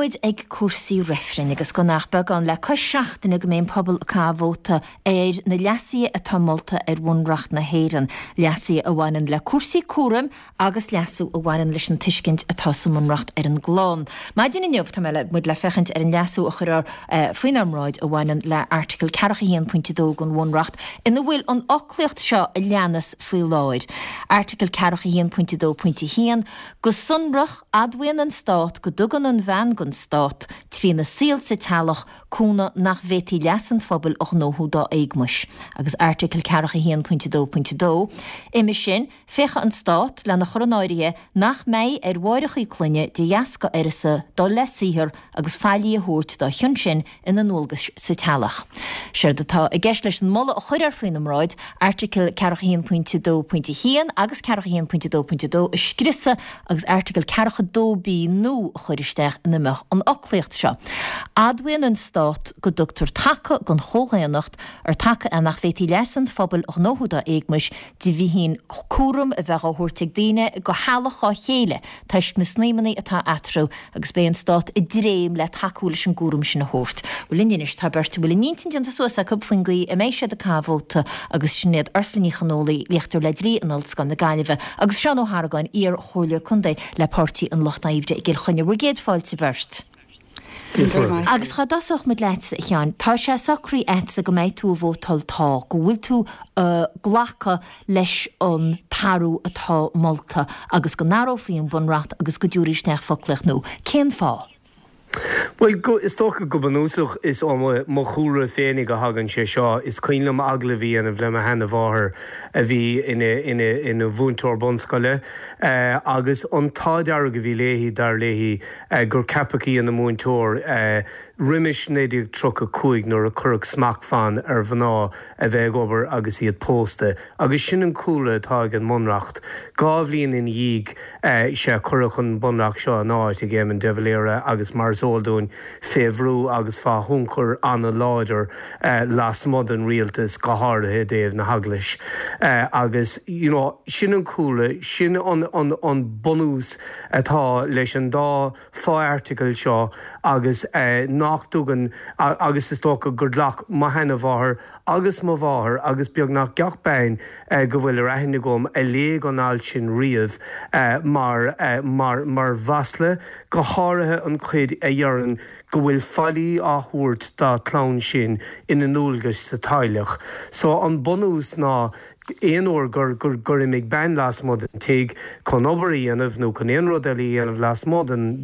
muid ag cúrsaí reifrinn agus gan ach beagán le cois seachtaine go mbeidh an pobal ag caitheamh vóta ar na leasuithe atá molta ar Bhunreacht na hÉireann, leasuithe a bhaineann le cúrsaí cúraim agus leasú a bhaineann leis an tuiscint atá sa mBunreacht ar an gclann. Maidin inniu tá mé le muid le féachaint ar an leasú a chuirfear faoinár mbráid a bhaineann le Airteagal 41.2 den Bhunreacht ina bhfuil an fhoclaíocht seo a leanas faoi láthair, Airteagal 41.2.1, Go sonrach, admhaíonn an Stát go dtugann an bhean don Stát, trína saol sa teaghlach, cúnamh nach bhféadfaí leas an phobail a ghnóthú dá éagmais, agus Airteagal 41.2.2, Uime sin, féachfaidh an Stát lena chur in áirithe nach mbeidh ar mháithreacha clainne de dheasca uireasa dul le saothar agus faillí a thabhairt dá chionn sin ina ndualgais sa teaghlach. Séard atá i gceist leis an moladh a chuirfear faoina mbráid, Airteagal 41.2.1 agus 41.2.2 a scriosadh agus Airteagal 42B nua a chur isteach ina mbeadh an fhoclaíocht seo, Admhaíonn an Stát go dtugtar taca don chomhdhaonnacht, ar taca é nach bhféadfaí leas an phobail a ghnóthú dá éagmais, de bhíthin cúram a bheith á thabhairt ag daoine go theaghlach dhá chéile toisc na snaidhmeanna atá eatarthu agus beidh an Stát i dtréim le tacú leis an gcúram sin a thabhairt. Bhuel linn anois tá beirt a bhfuil a n-intinn déanta suas acu faoin gcaoi a mbeidh siad ag caitheamh vóta agus sin iad Ursula Ní Chonfhaola, léachtóir le Dlí in Ollscoil na Gaillimhe agus Seán Ó hArgáin, iar-chomhairleoir contae le Páirtí an Lucht Oibre i gCill Chainnigh. Bhur gcéad fáilte beirt. Agus cá dtosódh muid leatsa, a Sheáin? Tá sé socraithe agatsa go mbeidh tú ag vótáil tá, go bhfuil tú ag glacadh leis an t-athrú atá molta agus go n-athrófaí an Bunreacht agus go dtabharfaí isteach foclaíocht nua. Cén fáth? Bhuel, is dócha go bunúsach is ó mo chúlra féinig a thagann sé seo. Is cuimhin liom agallamh a dhéanamh le mo sheana-mháthair a bhí ina mhúinteoir bunscoile agus an t-ádh dearg a bhí léi, dar léi, gur ceapadh í ina múinteoir roimis 1935 nuair a cuireadh smachtbhann ar mhná a bheith ag obair agus iad pósta. Agus sin an cúlra atá ag an mBunreacht. Dhá bhliain ina dhiaidh sea cuireadh an Bunreacht seo in áit ag Éamon de Valera agus mar is eol dúinn fé bhrú agus fá thionchar an-láidir lasmuigh den rialtas, go háirithe i dtaobh na hEaglais. Agus you know sin an cúlra, sin an bunús atá leis an dá fho-airteagal seo agus nach dtugann, agus is dócha gur ghlac mo sheana-mháthair agus mo mháthair agus beagnach gach bean go bhfuil ar aithne agam a léigh an alt sin riamh mar, mar, mar mhasla, go háirithe an chuid a dheireann go bhfuil faillí á thabhairt dá clann sin ina ndualgais sa teaghlach. So an bunús ná Aon uair gur gur imigh bean lasmuigh den tigh chun obair a dhéanamh nó chun aon rud eile a dhéanamh lasmuigh den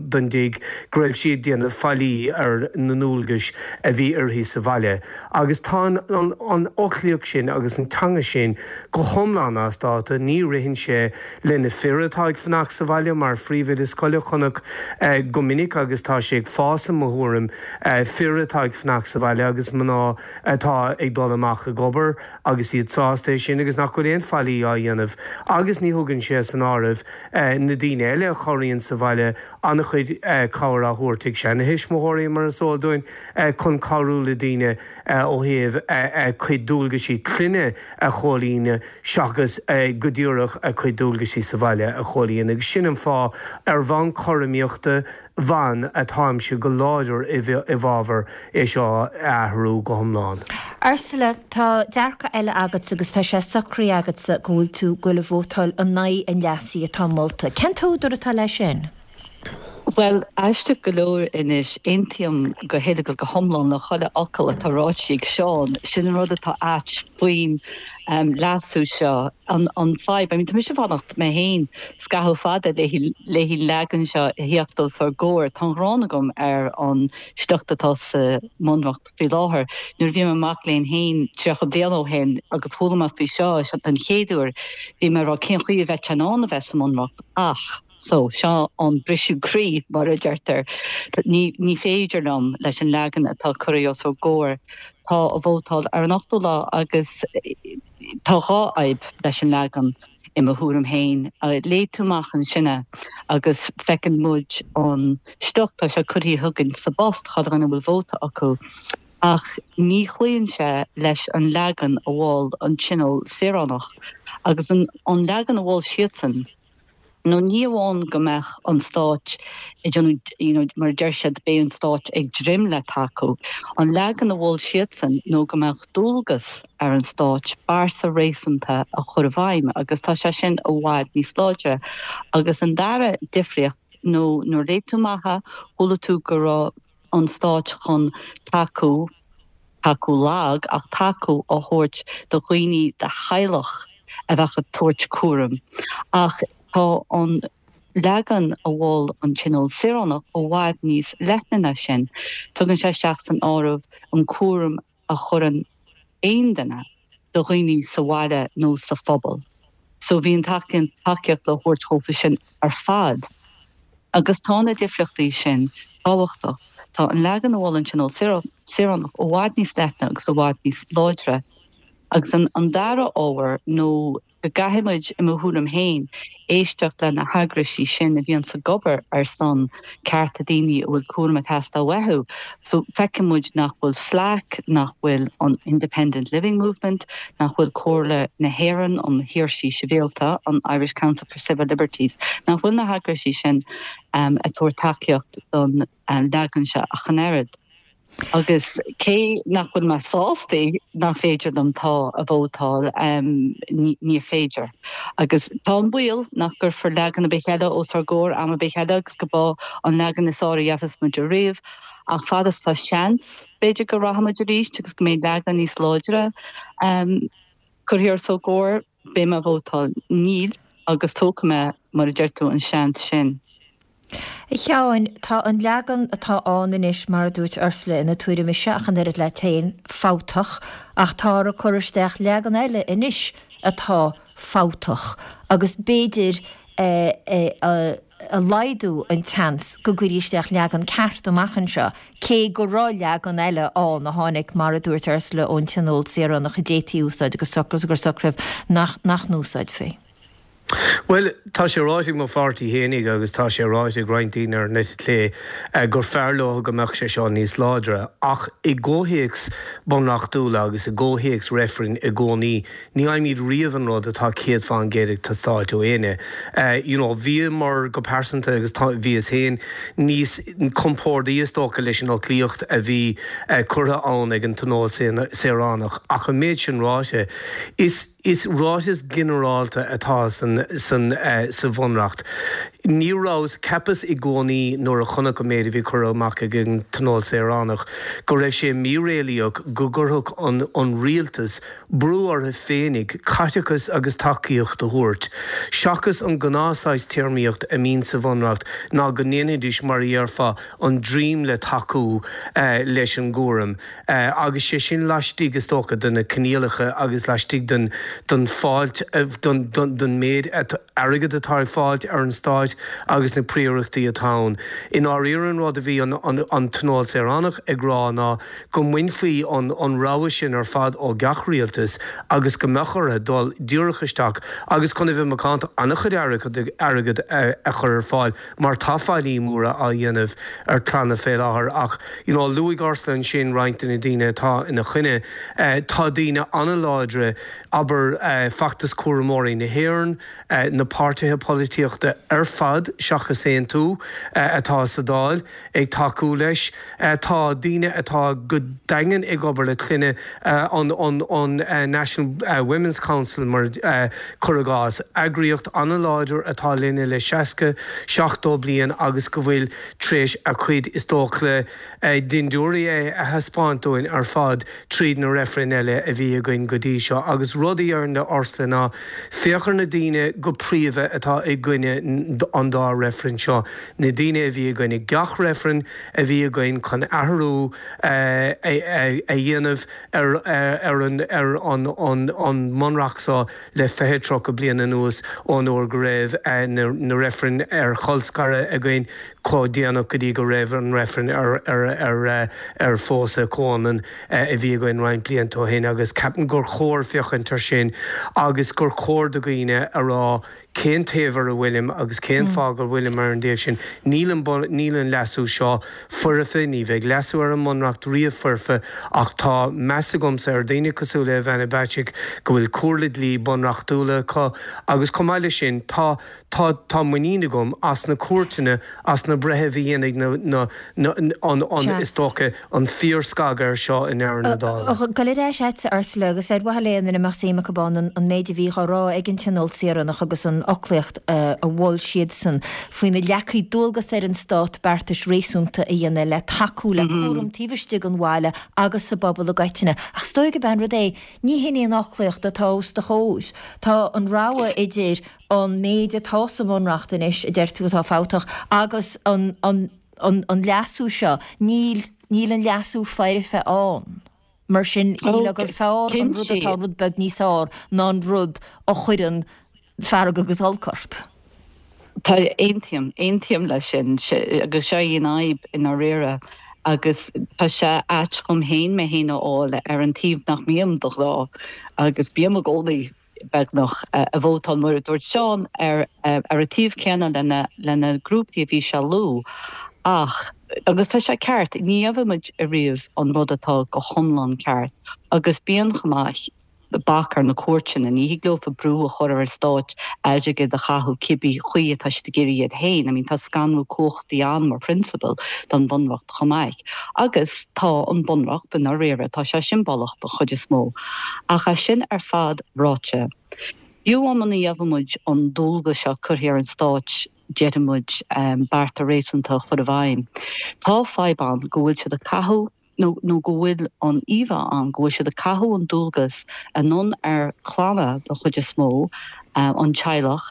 den dtigh, go raibh sí ag déanamh faillí ar na ndualgais a bhí uirthi sa bhaile. Agus tá an an fhoclaíocht sin agus an teanga sin go hiomlán as dáta. Ní ritheann sé le na fir atá ag fanacht sa bhaile mar phríomhoide scoile chonac go minic agus tá sé ag fás i mo thuairim, fir atá ag fanacht sa bhaile agus mná atá ag dul amach ag obair agus iad sásta é sin agus nach bhfuil aon faillí á dhéanamh agus ní thugann sé san áireamh na daoine eile a chabhraíonn sa bhaile, an-chuid cabhair á thabhairt ag seana-thuismitheoirí mar is eol dúinn chun cabhrú le daoine ó thaobh a cuid dualgaisí clainne a chomhlíonadh seachas go díreach a cuid dualgaisí sa bhaile a chomhlíonadh agus sin an fáth ar bhonn cothromaíochta ban atáimse go láidir i bhfabhar é seo a athrú go hiomlán. Ursula, tá dearcadh eile agatsa agus tá sé socraithe agatsa go bhfuil tú ag goil a vótáil in aghaidh an leasaithe atá molta. Cén t-údar atá leis sin? Bhuel, aisteach go leor anois, aontaím go huile agus go hiomlán le chuile fhocal atá ráite ag Seán. Sin an rud atá ait faoin leasú seo. An fadhb, I mean, tá mise ag fanacht mé féin scaitheamh fada léi an leagan seo a theacht os ár gcomhair. Tá an ghráin agam ar an sliocht atá sa mBunreacht faoi láthair. Nuair a bhí mé i mo mhac léinn féin 30 bliain ó shin agus chuala mé faoi seo den chéad uair, bhí mé ag rá cén chaoi a bheadh sé in ann a bheith sa mBunreacht ach so seo an briseadh croí mar a deirtear. Ní ní féidir liom leis an leagan atá curtha os ár gcomhair. Tá a vótáil ar an ochtú lá agus tá dhá fhadhb leis an leagan i mo thuairim féin. Léigh tú amach ansin é agus feiceann muid an sliocht, tá sé curtha chugainn sa bpost, chuile dhuine a bhfuil vóta acu, ach ní chloíonn sé leis an leagan a mhol an Tionól Saoránach. Agus an leagan a mhol siadsan. Nó ní amháin go mbeadh an stáit ag déanamh, you know, mar a deir siad, beidh an stáit ag dréim le tacú. An leagan a mhol siadsan nó go mbeadh dualgas ar an stáit bearta réasúnta a chur i bhfeidhm agus tá sé sin i bhfad níos láidre. Agus an dara difríocht nó nuair a léigh tú amach é, chuala tú go raibh an stáit chun tacú, tacú lag, ach tacú a thabhairt do dhaoine de theaghlach a bheadh ag tabhairt cúraim. Ach tá an leagan a mhol an Tionól Saoránach i bhfad níos leithne ná sin. Tugann sé isteach san áireamh an cúram a chuireann aon duine do dhaoine sa bhaile nó sa phobal. So bhí an tacaíocht le thabhairt dhófa sin ar fad. Agus tá na difríochtaí sin tábhachtach. Tá an leagan a mhol an Tionól Saoránach i bhfad níos leithne agus i bhfad níos láidre. Agus an dara ábhar nó go gcaithfidh muid, i mo thuairim féin, éisteacht le na heagraisí sin a bhíonns ag obair ar son cearta daoine a bhfuil cúram ag teastáil uathu. So, feiceann muid nach bhfuil FLAC, nach bhfuil an Independent Living Movement, nach bhfuil Comhairle na hÉireann um Shaoirsí Sibhialta, an Irish Council for Civil Liberties, nach bhfuil na heagraisí sin ag tabhairt tacaíocht don leagan seo ach an oiread. Agus cé nach bhfuil mé sásta nach féidir liom tá a vótáil, ní féidir. Agus tá an baol nach gcuirfear leagan ar bith eile os ár gcomhair am ar bith eile agus go b'é an leagan is fearr a gheobhas muid ariamh. Ach fad is tá seans, b'fhéidir go rachaidh muid arís agus go mbeidh leagan níos láidre curtha os ár gcomhair, beidh mé ag vótáil níl agus tógfaidh mé, mar a deir tú, an seans sin. A Sheáin, tá an leagan atá ann anois, mar a dúirt Ursula ina tuairim ise ach an oiread leat féin, fabhtach, ach táthar ag cur isteach leagan eile anois atá fabhtach agus b'fhéidir a laghdú an tseans go gcuirfí isteach leagan ceart amach anseo, cé go raibh leagan eile ann a tháinig, mar a dúirt Ursula, ón Tionól Saoránach a d'fhéadfaí a úsáid agus gur socraíodh nach n-úsáidfí. Bhuel, tá sé ráite ag mo pháirtí fhéinig agus tá sé ráite ag roinnt daoine ar an eite chlé gur fearr leo go mbeadh sé seo níos láidre. Ach i gcomhthéacs bunreachtúla agus i gcomhthéacs reifrinn i gcónaí, ní fhaighimid riamh an rud atá 100% ag teastáilt ó éinne. You know, bhíomar go pearsanta agus tá, bhíos féin níos compórdaí is dócha leis an fhoclaíocht a bhí curtha ann ag an Tionól Saoránach. Ach an méid sin ráite, is. Is ráiteas ginearálta atá sa Bhunreacht. Ní rabhas, cheapas i gcónaí nuair a chonac an méid a bhí curtha amach ag an Tionól Saoránach go raibh sé míréalaíoch go gcuirfeadh an rialtas brú orthu féinig caiteachas agus tacaíocht a thabhairt, seachas an gnáth saghas téarmaíocht a mbíonn sa Bhunreacht ná go ndéanfaidís mar a dhéarfá an dream le tacú leis an gcúram. agus sé sin laistigh, is dócha, de na coinníollacha agus laistigh den den fáilt, den den méid airgid atá ag fáilt ar an stáit agus na príorachtaí atá ann. I ndáiríre an rud a bhí an an Tionól Saoránach ag rá ná go mbainfí an an rogha sin ar fad ó gach rialtas agus go mbeadh orthu dul díreach isteach agus chun a bheith macánta an-chuid airgid a chur ar fáil mar tá faillí móra á dhéanamh ar clanna fé láthair ach you know luaigh Ursula ansin roinnt de na daoine atá ina choinne. Tá daoine an-láidre, abair Feachtas Cúramóirí na hÉireann, na páirtithe polaitíochta ar fad seachas Aontú atá sa Dáil ag tacú leis. Tá daoine atá go daingean ag obair le clainne, an an National Women's Council mar cuir i gcás, eagraíocht an-láidir atá linne le 60, 70 bliain agus go bhfuil tar éis a cuid is dócha dindiúirí a thaispeáint dúinn ar fad tríd na reifrinn eile a bhí againn go dtí seo. Agus rud a déarfainn le Ursula ná féach ar na daoine go príomha atá i gcoinne an dá reifreann seo, na daoine a bhí i gcoinne gach reifreann a bhí againn chun athrú a dhéanamh ar an ar an an mBunreacht seo le 20, 30 bliain anuas ón uair go raibh na reifrinn ar cholscaradh againn. Chomh déanach go dtí go raibh an reifreann ar phósadh comhionann a bhí againn roinnt blianta ó shin agus ceapaim gur chóir féachaint ar sin agus gur chóir do dhaoine a rá cén taobh ar a bhfuilim agus cén fáth go bhfuilim ar an dtaobh sin. Níl an níl an leasú seo foirfe, ní bheidh leasú ar an mBunreacht riamh foirfe ach tá meas agamsa ar dhaoine cosúil le Ivana Bacik go bhfuil comhairle dlí bunreachtúla acu agus chomh maith leis sin tá Tá, tá muinín agam as na cúirteanna, as na breithimh a dhéanfaidh na, na, na, an, an, is dócha, an fíorscagadh air seo i ndeireadh na dála. Gabháil ar ais agatsa, Ursula, agus ar mhaithe le aon duine a mbeadh suim acu ann, an, an méid a bhí á rá ag an Tionól Saoránach agus an fhoclaíocht a mhol siadsan faoina leagfaí dualgas ar an Stát beartais réasúnta a dhéanamh le tacú le cúram taobh istigh den bhaile agus sa bpobal i gcoitinne. Ach is dóigh gurb é an rud é, ní hin í an fhoclaíocht atá os do chomhair. Tá an rogha idir an méid atá sa mBunreacht anois, a deir tú atá fabhtach, agus an, an, an, an leasú seo, níl, níl an leasú foirfe ann. Mar sin, shílfeá gur fearr an rud atá rud beag níos fearr ná an rud a chuireann fearg agus olc ort. Tá, aontaím, aontaím leis sin, agus seo í an fhadhb i ndáiríre, agus tá sé ait dhom féin mé féin a fháil ar an taobh nach mbím de ghnáth, agus bím i gcónaí beagnach, ag vótáil, mar a dúirt Seán, ar an taobh céanna le na grúpaí a bhí sé a lua. Ach, agus tá sé ceart, ní gheobhaidh muid ariamh an rud atá go hiomlán ceart. Agus bíonn chomh maith bac ar na cúirteanna, ní thig leofa brú a chur ar an stáit airgead a chaitheamh cibé chaoi atá siad ag iarraidh iad féin. I mean, tá scanradh cumhachtaí ann mar phrionsabal don Bhunreacht chomh maith. Agus tá an Bunreacht, i ndáiríre, tá sé siombalach don chuid is mó. Ach é sin ar fad ráite, fiú amháin muna gheobhaidh muid an dualgas seo curtha ar an Stáit, déarfaidh muid, bearta réasúnta a chur i bhfeidhm, tá fadhb ann go bhfuil siad ag caitheamh, nó nó go bhfuil an íomhá ann go bhfuil siad ag caitheamh an dualgas anonn ar clanna den chuid is mó, an teaghlach,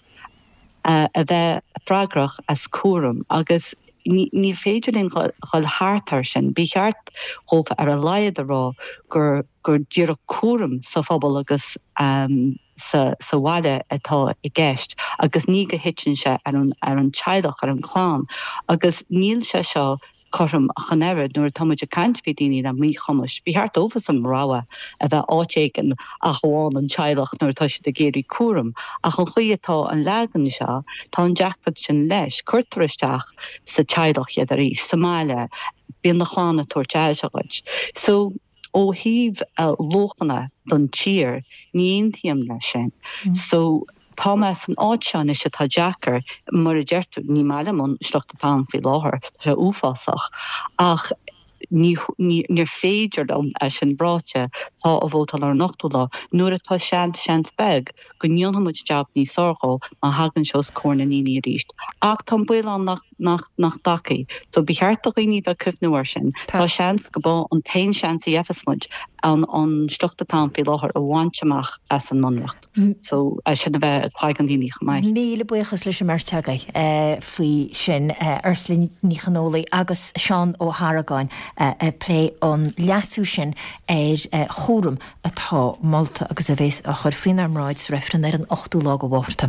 a bheith freagrach as cúram agus ní féidir linn dhul thart air sin. Ba cheart dhófa ar a laghad a rá gur gur díreach cúram sa phobal agus sa sa bhaile atá i gceist agus ní go thiteann sé ar an ar an teaghlach, ar an chlann agus níl sé seo cothrom ach an oiread. Nuair atá muid ag caint faoi daoine le míchumais, ba cheart dófasan rogha a bheith áit éigin ach amháin an teaghlach nuair atá siad ag iarraidh cúram. Ach an chaoi atá an leagan seo, tá an deacracht sin leis. Cuirtear isteach sa teaghlach iad arís, sa mbaile, bíonn do chlann ag tabhairt aire dhuit. So. Ó thaobh luachanna don tír, ní aontaím leis sin. So, tá mé san áit seo anois atá deacair, mar a deir tú, ní maith liom an sliocht atá ann faoi láthair, tá sé uafásach, ach ní, ní, níor féidir liom, é sin ráite, tá a vótáil ar an ochtú lá, nuair atá seans, seans beag, go ndéanfaidh muid jab níos fearr dhó má thagann sé os comhair na ndaoine arís. Ach tá an baol ann nach, nach, nach dtagfaidh. So ba cheart do dhaoine bheith ag cuimhniú air sin. Tá seans go b'é an t-aon seans a gheibheas muid an, an sliocht atá ann faoi láthair a bhaint amach as an mBunreacht. So é sin a bheith i gcloigeann daoine chomh maith. Míle buíochas leis an mbeirt agaibh faoi sin, Ursula Ní Chonfhaola agus Seán Ó hArgáin ag plé an leasú sin ar chúram atá molta agus a bheas á chur faoinár mbráid sa reifreann ar an ochtú lá de Mhárta.